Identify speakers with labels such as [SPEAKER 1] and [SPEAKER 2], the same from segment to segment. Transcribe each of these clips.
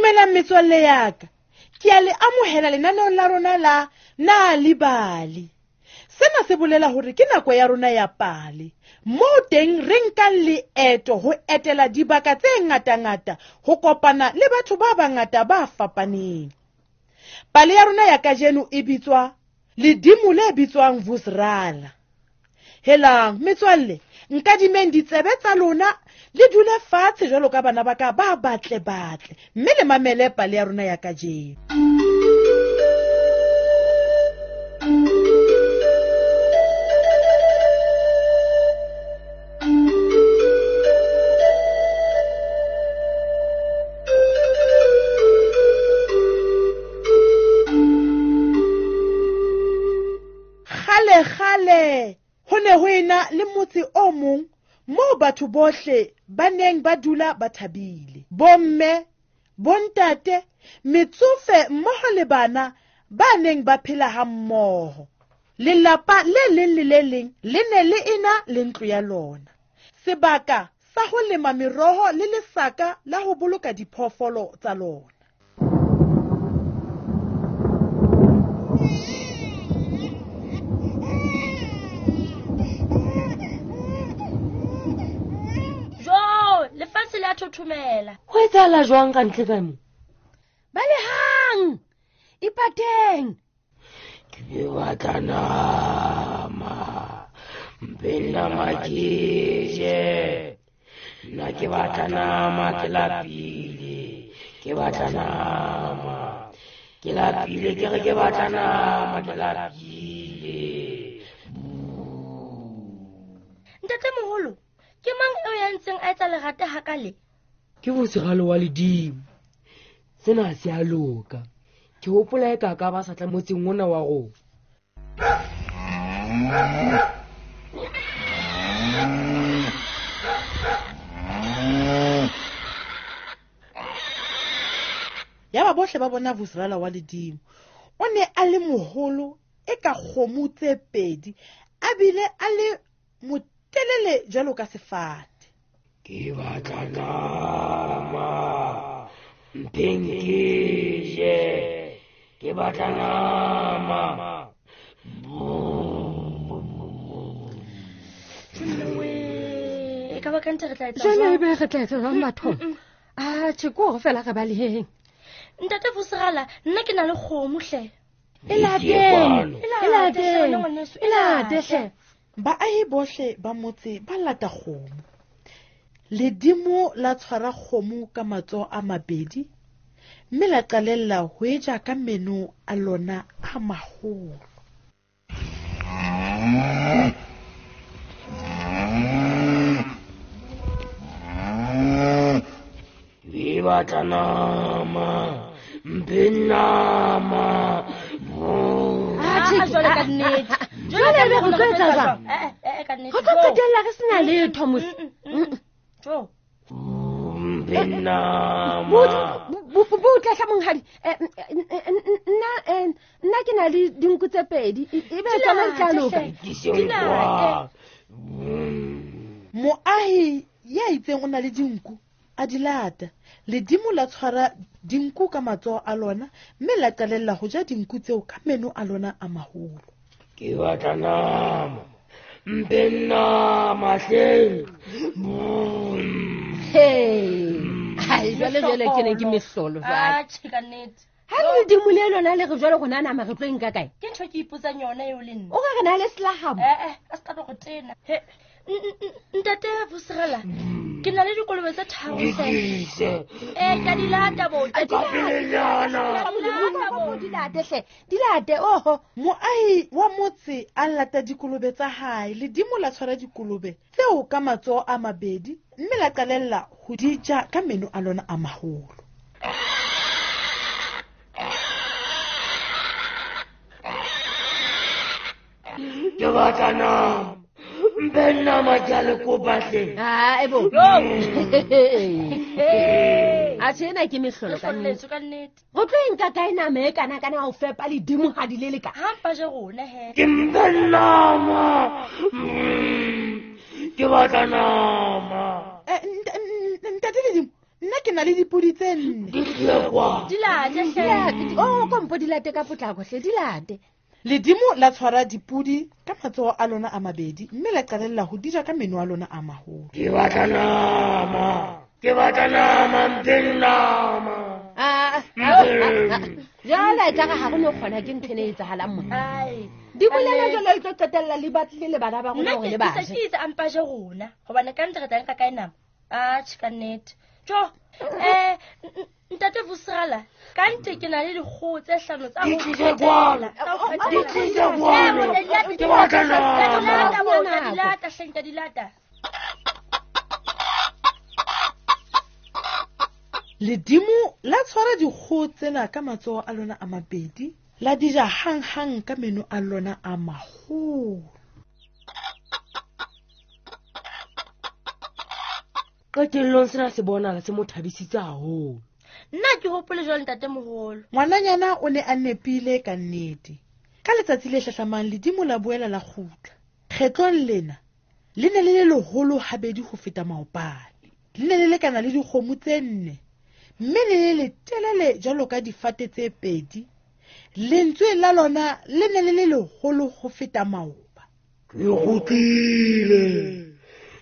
[SPEAKER 1] Dumelang metswalle ya ka. Ke a le amohela lenaneong la rona la Nal'ibali. Sena se bolela hore ke nako ya rona ya pale. Moo teng re nkang leeto ho etela dibaka tse ngatangata ho kopana le batho ba bangata ba fapaneng. Pale ya rona ya kajeno e bitswa Ledimo le bitswang Vusrala. Helang metswalle, nkadimeng ditsebe tsa lona le dule fatshe jwalo ka bana ba ka ba batle batle mme le mamele pale ya rona ya kajeno. Kgale-kgale ho ne ho ena le motse o mong moo batho bohle ba neng ba dula ba thabile. Bomme, bontate, metsofe mmoho le bana ba neng ba phela ha mmoho. Lelapa le leng le le leng le ne le ena le ntlo ya lona. Sebaka sa ho lema meroho le lesaka la ho boloka diphoofolo tsa lona.
[SPEAKER 2] Jo, lefatshe le a thothomela.
[SPEAKER 3] Ho etsahala jwang ka ntle ka mo? Balehang! Ipateng!
[SPEAKER 4] Ke batla nama. Mpe nama ke je. Nna ke batla nama, ke lapile. Ke batla nama. Ke lapile, ke re ke batla nama, ke lapile.
[SPEAKER 2] Ntate moholo, ke mang eo ya ntseng a etsa lerata hakale?
[SPEAKER 3] Ke Vusiralo wa ledimo. Sena se a loka. Ke hopola e ka ka ba sa tla motseng ona wa rona.
[SPEAKER 1] Yaba bohle ba bona Vusirala wa ledimo. O ne a le moholo e ka kgomo tse pedi, a bile a le motelele jwalo ka sefate.
[SPEAKER 4] Ke batla nama. Mpeng ke je. Ke batla nama.
[SPEAKER 2] E ka ba ka ntse re tla etsa
[SPEAKER 5] Jwale
[SPEAKER 2] jwang?
[SPEAKER 5] ebe re tla etsa jwang bathong? Atjhe, ke hore fela re baleheng.
[SPEAKER 2] Ntate Vusirala, nna ke na le kgomo hle.
[SPEAKER 5] E lateng,
[SPEAKER 2] E
[SPEAKER 5] e
[SPEAKER 2] late,
[SPEAKER 5] lateng,
[SPEAKER 2] hle, ngwaneso,
[SPEAKER 5] e late hle.
[SPEAKER 1] Baahi bohle ba motse ba lata kgomo. Ledimo la tshwara kgomo ka matsoho a mabedi mme la qalella ho e ja ka meno a lona a maholo.
[SPEAKER 4] Ke batla nama. Mpe nama.
[SPEAKER 5] Atjhe,
[SPEAKER 2] Ah, jwale ka nnete.
[SPEAKER 5] Jwale ebe re tlo etsa jwang?
[SPEAKER 2] Eh, eh, ka nnete.
[SPEAKER 5] Re tlo qetella re sena letho mos.
[SPEAKER 2] Jo.
[SPEAKER 4] Mpe nama.
[SPEAKER 5] Butle hle monghadi. Nna ke na le dinku tse pedi. Ebe tsona di tla loka.
[SPEAKER 4] Ke kwa.
[SPEAKER 1] Moahi ya itseng o na le dinku a di lata. Ledimo la tshwara dinku ka matsoho a lona mme la qalella ho ja dinku tseo ka meno a lona a maholo.
[SPEAKER 4] Ke batla nama. Mpe nama hle.
[SPEAKER 5] Hey. Hai, jwale jwale ke ne ke mehlolo jwale.
[SPEAKER 2] Atjhe, ka nnete.
[SPEAKER 5] Ha ledimo le lona le re jwale rona nama re tlo e nka kae?
[SPEAKER 2] Ke ntho e ke ipotsang yona eo le nna.
[SPEAKER 5] O ka re na le selahabo.
[SPEAKER 2] Eh, a se ka tlo go tena. He, ntate Vusirala, ke na le dikolobe tse tharo hle.
[SPEAKER 4] Dikise.
[SPEAKER 2] Eh, ka di lata bo.
[SPEAKER 5] Di late bo, di late hle. Di late, oho.
[SPEAKER 1] Moahi wa motse a lata dikolobe tsa hae. Ledimo la tshwara dikolobe tseo ka matsoho a mabedi mme la qalella ho di ja ka meno a lona a maholo.
[SPEAKER 4] Ke batla nama. Mpe nama ke a le kopa hle.
[SPEAKER 5] Hai bo. Atjhe, ena ke mehlolo ka nnete.
[SPEAKER 2] Mehlolo ka nnete.
[SPEAKER 5] Re tlo e nka kae nama e kana kana ho fepa ledimo ha di le leka?
[SPEAKER 2] Ha mpa je rona he.
[SPEAKER 4] Ke mpe nama. Ke batla nama.
[SPEAKER 1] Ntate Ledimo, nna ke na le dipodi tse nne.
[SPEAKER 4] Di tlise kwano.
[SPEAKER 2] Di late hle.
[SPEAKER 5] O kompo di late ka potlako hle, di late.
[SPEAKER 1] Ledimo la tshwara dipodi ka matsoho a lona a mabedi mme la qalella ho di ja ka meno a lona a maholo.
[SPEAKER 4] Ke batla nama. Ke batla nama, mpeng nama.
[SPEAKER 5] Jwale e tla re ha re no kgona ke ntho ena e etsahalang mona.
[SPEAKER 2] Ai.
[SPEAKER 5] Di bolela jwalo e tlo qetella le batlile le bana ba rona
[SPEAKER 2] Nna
[SPEAKER 5] hore
[SPEAKER 2] ke
[SPEAKER 5] le
[SPEAKER 2] ke
[SPEAKER 5] ba
[SPEAKER 2] se
[SPEAKER 5] je.
[SPEAKER 2] ke itse a mpa je rona hobane ka ntle re tla nka kae nama? Atjhe, ka nnete. Jo, ntate Vusirala, ka ntle ke na le dikgoho tse hlano tsa
[SPEAKER 4] Di
[SPEAKER 2] ho
[SPEAKER 4] tlise
[SPEAKER 2] qetela,
[SPEAKER 4] kwano.
[SPEAKER 2] tsa ho
[SPEAKER 4] Di
[SPEAKER 2] qetela.
[SPEAKER 4] tlise
[SPEAKER 2] Eh,
[SPEAKER 4] kwano.
[SPEAKER 2] bo, di lata,
[SPEAKER 4] Ke
[SPEAKER 2] di
[SPEAKER 4] batla
[SPEAKER 2] lata,
[SPEAKER 4] nama.
[SPEAKER 2] di lata, bo,
[SPEAKER 5] Nako.
[SPEAKER 2] di lata, hle, nka di lata.
[SPEAKER 1] Ledimo la tshwara dikgoho tsena ka matsoho a lona a mabedi, la di ja hanghang ka meno a lona a maholo.
[SPEAKER 3] Qetellong sena se bonahala se mo thabisitse haholo.
[SPEAKER 2] Nna ke hopole jwalo ntatemoholo.
[SPEAKER 1] Ngwananyana o ne a nepile ka nnete. Ka letsatsi le hlahlamang ledimo la boela la kgutla. Kgetlong lena le ne le le leholo habedi ho feta maobane. Le ne le lekana le dikgomo tse nne, mme le le letelele jwalo ka difate tse pedi. Lentswe la lona le ne le le leholo ho feta maoba.
[SPEAKER 4] Ke kgutlile.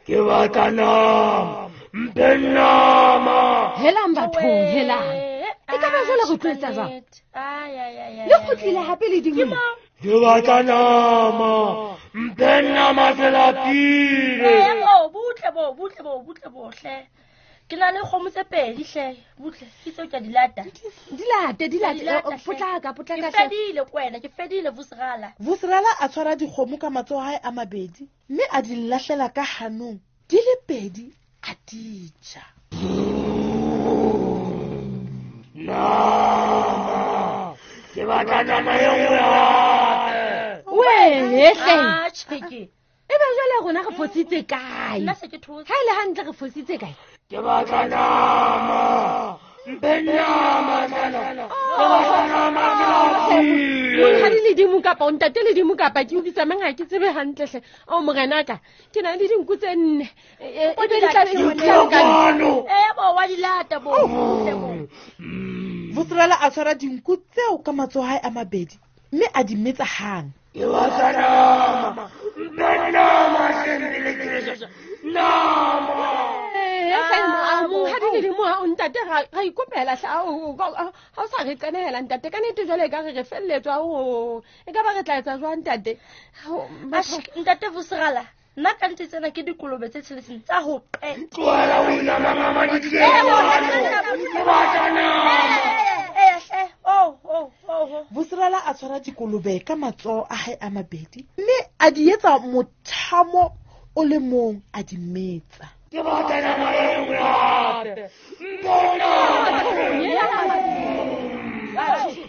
[SPEAKER 4] Ke batla nama. Mphe nama.
[SPEAKER 5] Helang bathong, helang.
[SPEAKER 2] E
[SPEAKER 5] E ka ba jwale re tlo etsa jwang?
[SPEAKER 2] Ai, ai, ai, ai,
[SPEAKER 5] Le
[SPEAKER 2] ai,
[SPEAKER 5] kgutlile
[SPEAKER 2] ai.
[SPEAKER 5] hape ledimo
[SPEAKER 2] Ke
[SPEAKER 5] le.
[SPEAKER 2] mo.
[SPEAKER 4] Ke batla nama. Mphe nama ke lapile.
[SPEAKER 2] Eh, oh, butle bo, butle bo, butle bo hle. Ke na le kgomo tse pedi hle, butle. Ke tseo ke a di lata.
[SPEAKER 5] Di late, di late.
[SPEAKER 2] Di lata,
[SPEAKER 5] Oh,
[SPEAKER 2] hle.
[SPEAKER 5] Potlaka,
[SPEAKER 2] Ke
[SPEAKER 5] potlaka hle.
[SPEAKER 2] fedile kwena, ke fedile Vusirala.
[SPEAKER 1] Vusirala a tshwara dikgomo ka matsoho a hae a mabedi mme a di lahlela ka hanong di le pedi a di ja.
[SPEAKER 4] Nama. Ke batla nama e nngwe hape.
[SPEAKER 5] Wee, hle.
[SPEAKER 2] Atjhe ke.
[SPEAKER 5] E be jwale rona re fositse kae?
[SPEAKER 2] Nna se ke thotse.
[SPEAKER 5] Ha e le hantle re fositse kae?
[SPEAKER 4] Ke batla nama. Mphe nama tlana. Ke batla nama ke lapile.
[SPEAKER 5] Monghadi ledimo kapa o ntate ledimo kapa ke utlwisa mang ha ke tsebe hantle hle. Ao morenaka, ke na le dinku tse nne. E be di tla be di
[SPEAKER 4] Di
[SPEAKER 5] tla
[SPEAKER 4] tlise
[SPEAKER 5] lekana.
[SPEAKER 4] kwano.
[SPEAKER 2] Eh, bo wa di lata bo. Butle bo.
[SPEAKER 1] Vusirala a tshwara dinku tseo ka matsoho a hae a mabedi mme a di metsa hang.
[SPEAKER 4] Ke batla nama. Mphe nama hle pele ke ja. Nama.
[SPEAKER 5] Eh, hle, monghadi ledimo ha o ntate ra ikopela hle. Ao, ha o sa re qenehela ntate. Ka nnete jwale ekare re felletswa. Ao, e ka ba re tla etsa jwang ntate? Ao,
[SPEAKER 2] Atjhe, ntate Vusirala, nna ka nnete tsena ke dikolobe tse tsheletseng tsa ho qeta.
[SPEAKER 4] Tlohela ho inamangama di tlise
[SPEAKER 2] Eh, bo,
[SPEAKER 4] kwano. Ke batla nama.
[SPEAKER 2] Eh, hle. Oh, oh, oh, oh.
[SPEAKER 1] Vusirala a tshwara dikolobe ka matsoho a hae a mabedi mme a di etsa mothamo o le mong a di metsa.
[SPEAKER 4] Ke batla nama e nngwe hape. Mphe nama.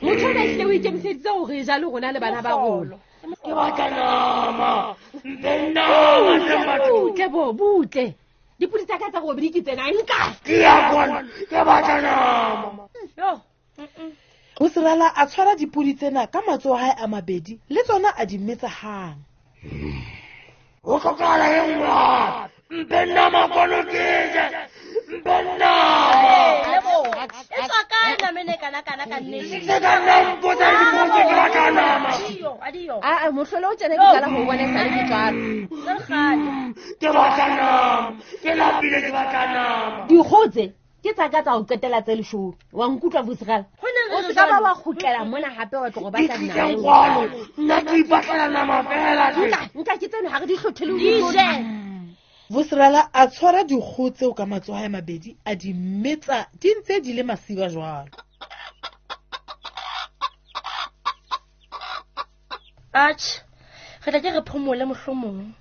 [SPEAKER 5] Motho ona ehlile o ikemiseditse hore e ja le rona le bana ba rona.
[SPEAKER 4] Ke batla nama. Mphe nama hle batho.
[SPEAKER 5] Butle bo, butle. Dipodi tsa ka tsa robedi ke tsena, nka.
[SPEAKER 4] Ke ya kwano. Ke batla nama.
[SPEAKER 2] Yo.
[SPEAKER 1] Vusirala a tshwara dipodi tsena ka matsoho a hae a mabedi le tsona a di metsa hang.
[SPEAKER 4] Ho hlokahala e nngwe hape. Mphe nama kwano ke je. Mphe nama.
[SPEAKER 2] Eh, lebo. E tswa kae nama ena e kana-kana ka nnete?
[SPEAKER 4] Se ka nna mpotsa dipotso ke batla nama.
[SPEAKER 2] Adiyo, adiyo.
[SPEAKER 5] Aa, mohlolo o tjena ke qala ho bona esale ke tswalwa.
[SPEAKER 2] Tse le kgale.
[SPEAKER 4] Ke batla nama. Ke lapile ke batla nama.
[SPEAKER 5] Dikgoho tse ke tsa ka tsa ho qetela tse leshome. Wa nkutlwa Vusirala?
[SPEAKER 2] Ho neng
[SPEAKER 5] O
[SPEAKER 2] re
[SPEAKER 5] se ka ba
[SPEAKER 2] jwalo?
[SPEAKER 5] wa kgutlela mona hape wa tlo go
[SPEAKER 4] Di
[SPEAKER 5] batla
[SPEAKER 4] tlise
[SPEAKER 5] nama.
[SPEAKER 4] kwano. Nna ke ipatlela nama fela hle.
[SPEAKER 5] Nka, nka ke tseno ha re di hlothele ho
[SPEAKER 2] Di
[SPEAKER 5] di
[SPEAKER 2] je.
[SPEAKER 1] Vusirala a tshwara dikgoho tseo ka matsoho a hae a mabedi a di metsa di ntse di le masiba jwalo.
[SPEAKER 2] Atjhe, re tla ke re phomole mohlomong.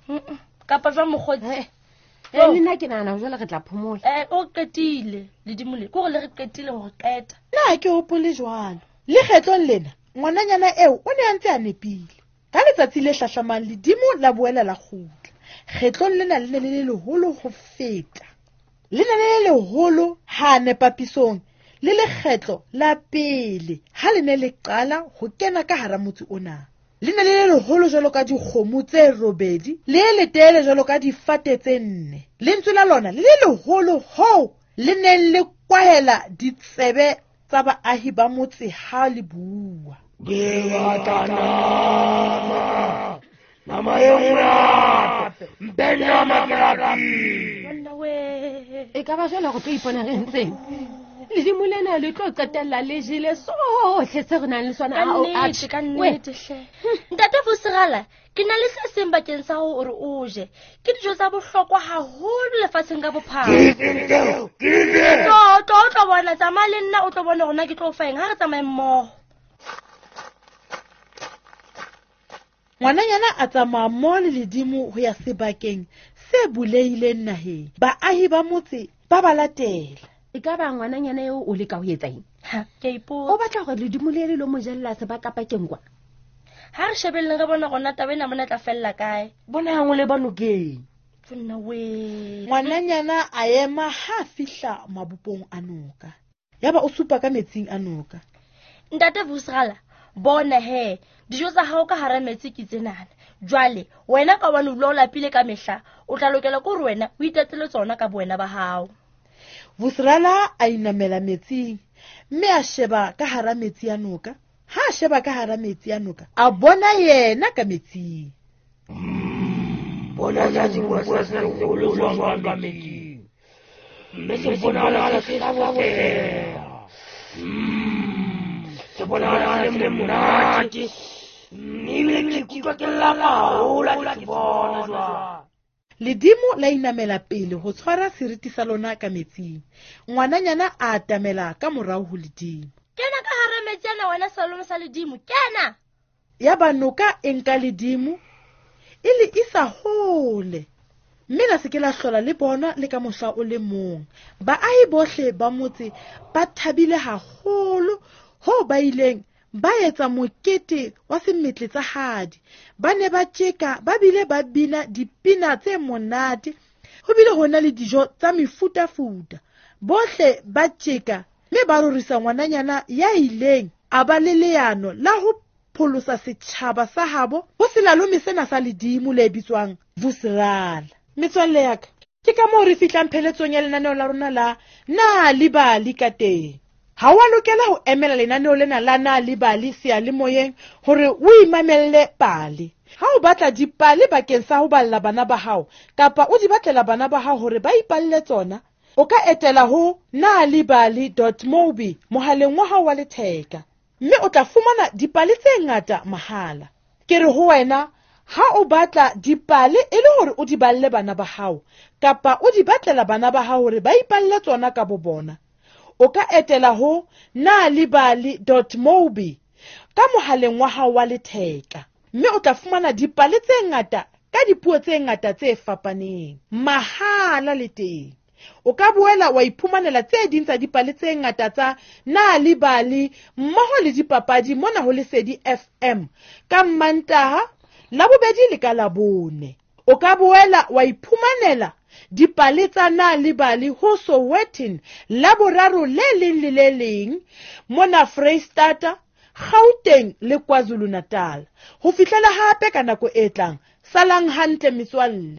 [SPEAKER 2] Kapa jwang mokgotsi?
[SPEAKER 5] Eh, le nna ke nahana jwale re tla phomola.
[SPEAKER 2] Eh, o qetile ledimo le. Ke hore le re qetile hore qeta.
[SPEAKER 1] Nna ha ke hopole jwalo. Le kgetlong lena, ngwananyana eo o ne a ntse a nepile. Ka letsatsi le hlahlamang ledimo la boela la kgutla. Kgetlong lena le ne le le leholo ho feta. Le ne le le leholo hane papisong le lekgetlo la pele ha le ne le qala ho kena ka hara motse ona. Le ne le le leholo jwalo ka dikgomo tse robedi, le le letelele jwalo ka difate tse nne. Lentswe la lona le le leholo hoo le neng le kwahela ditsebe tsa baahi ba motse ha le bua.
[SPEAKER 4] Ke batla nama. Nama e nngwe hape. Mpe nama ke lapile.
[SPEAKER 2] Monna we.
[SPEAKER 5] E ka ba jwale go tlo ipona re ntseng. Ledimo lena le tlo qetella le jele sohle se re nang le sona.
[SPEAKER 2] Ka
[SPEAKER 5] Ao,
[SPEAKER 2] nnete,
[SPEAKER 5] atjhe.
[SPEAKER 2] ka
[SPEAKER 5] We,
[SPEAKER 2] nnete hle. Ntate Vusigala, ke na le se seng bakeng sa hore o je. Ke dijo tsa bohlokwa haholo lefatsheng ka bophara.
[SPEAKER 4] Ke eng tseo? Ke eng?
[SPEAKER 2] Tlo, tlo, o tlo bona, tsamaya le nna o tlo bona hore na ke tlo o fa eng. Ha re tsamaye mmoho.
[SPEAKER 1] Ngwananyana a tsamaya mmoho le ledimo ho ya sebakeng se bulehileng naheng. Baahi ba motse ba ba latela.
[SPEAKER 5] E ka ba ngwananyana eo o leka ho etsa eng?
[SPEAKER 2] Ha, ke a
[SPEAKER 5] O
[SPEAKER 2] ipotsa.
[SPEAKER 5] batla hore ledimo le le lo mo jella sebakapakeng kwa?
[SPEAKER 2] Ha re shebelleng re bone hore na taba ena mona e tla fella kae.
[SPEAKER 3] Bonang o leba nokeng.
[SPEAKER 2] Monna we.
[SPEAKER 1] Ngwananyana a ema ha a fihla mabopong a noka. Yaba o supa ka metsing a noka.
[SPEAKER 2] Ntate Vusigala, bona he, dijo tsa hao ka hara metsi ke tsenana. Jwale, wena ka hobane o dula o lapile ka mehla, o tla lokela ke hore wena o itatele tsona ka bowena ba hao.
[SPEAKER 1] Vusigala a inamela metsing mme a sheba ka hara metsi a noka. Ha a sheba ka hara metsi a noka, a bona yena ka metsing.
[SPEAKER 4] Bona sa sebopuwa se seholo jwang ka metsing. Mme se bonahala se hlaboseha. Se bonahala se le monate. Ebile ke ikutlwa ke lapa haholo ha ke se bona jwale.
[SPEAKER 1] Ledimo la inamela pele ho tshwara seriti sa lona ka metsing. Ngwananyana a atamela ka morao ho ledimo.
[SPEAKER 2] Kena ka hara metsi ana wena selalome sa ledimo, kena!
[SPEAKER 1] Yaba noka e nka ledimo e le isa hole, mme la se ke la hlola le bona le ka mohla o le mong. Baahi bohle ba motse ba thabile haholo hoo ba ileng ba etsa mokete wa semetle tsa hadi. Ba ne ba tjeka ba bile ba bina dipina tse monate. Ho bile ho na le dijo tsa mefutafuta. Bohle ba tjeka mme ba rorisa ngwananyana ya ileng a ba le leano la ho pholosa setjhaba sa habo ho selalome sena sa ledimo le bitswang Vusigala. Metswalle ya ka, ke ka moo re fihlang pheletsong ya lenaneo la rona la Nal'ibali ka teng. Ha wa lokela ho emela lenaneo lena la Nal'ibali seyalemoyeng hore o imamelle pale. Ha o batla dipale bakeng sa ho balla bana ba hao kapa o di batlela bana ba hao hore ba ipalle tsona, o ka etela ho nalibali dot mobi mohaleng wa hao wa letheka, mme o tla fumana dipale tse ngata mahala. Ke re ho wena, ha o batla dipale e le hore o di balle bana ba hao kapa o di batlela bana ba hao hore ba ipalle tsona ka bo bona, o ka etela ho nalibali dot mobi ka mohaleng wa hao wa letheka, mme o tla fumana dipale tse ngata ka dipuo tse ngata tse fapaneng mahala le teng. O ka boela wa iphumanela tse ding tsa dipale tse ngata tsa Nal'ibali mmoho le dipapadi mona ho Lesedi FM ka Mmantaha, Labobedi le ka Labone. O ka boela wa iphumanela dipale tsa Nal'ibali ho Sowetan Laboraro le leng le le leng mona Freistata, Gauteng le KwaZulu-Natal. Ho fihlela hape ka nako e tlang, salang hantle metswalle.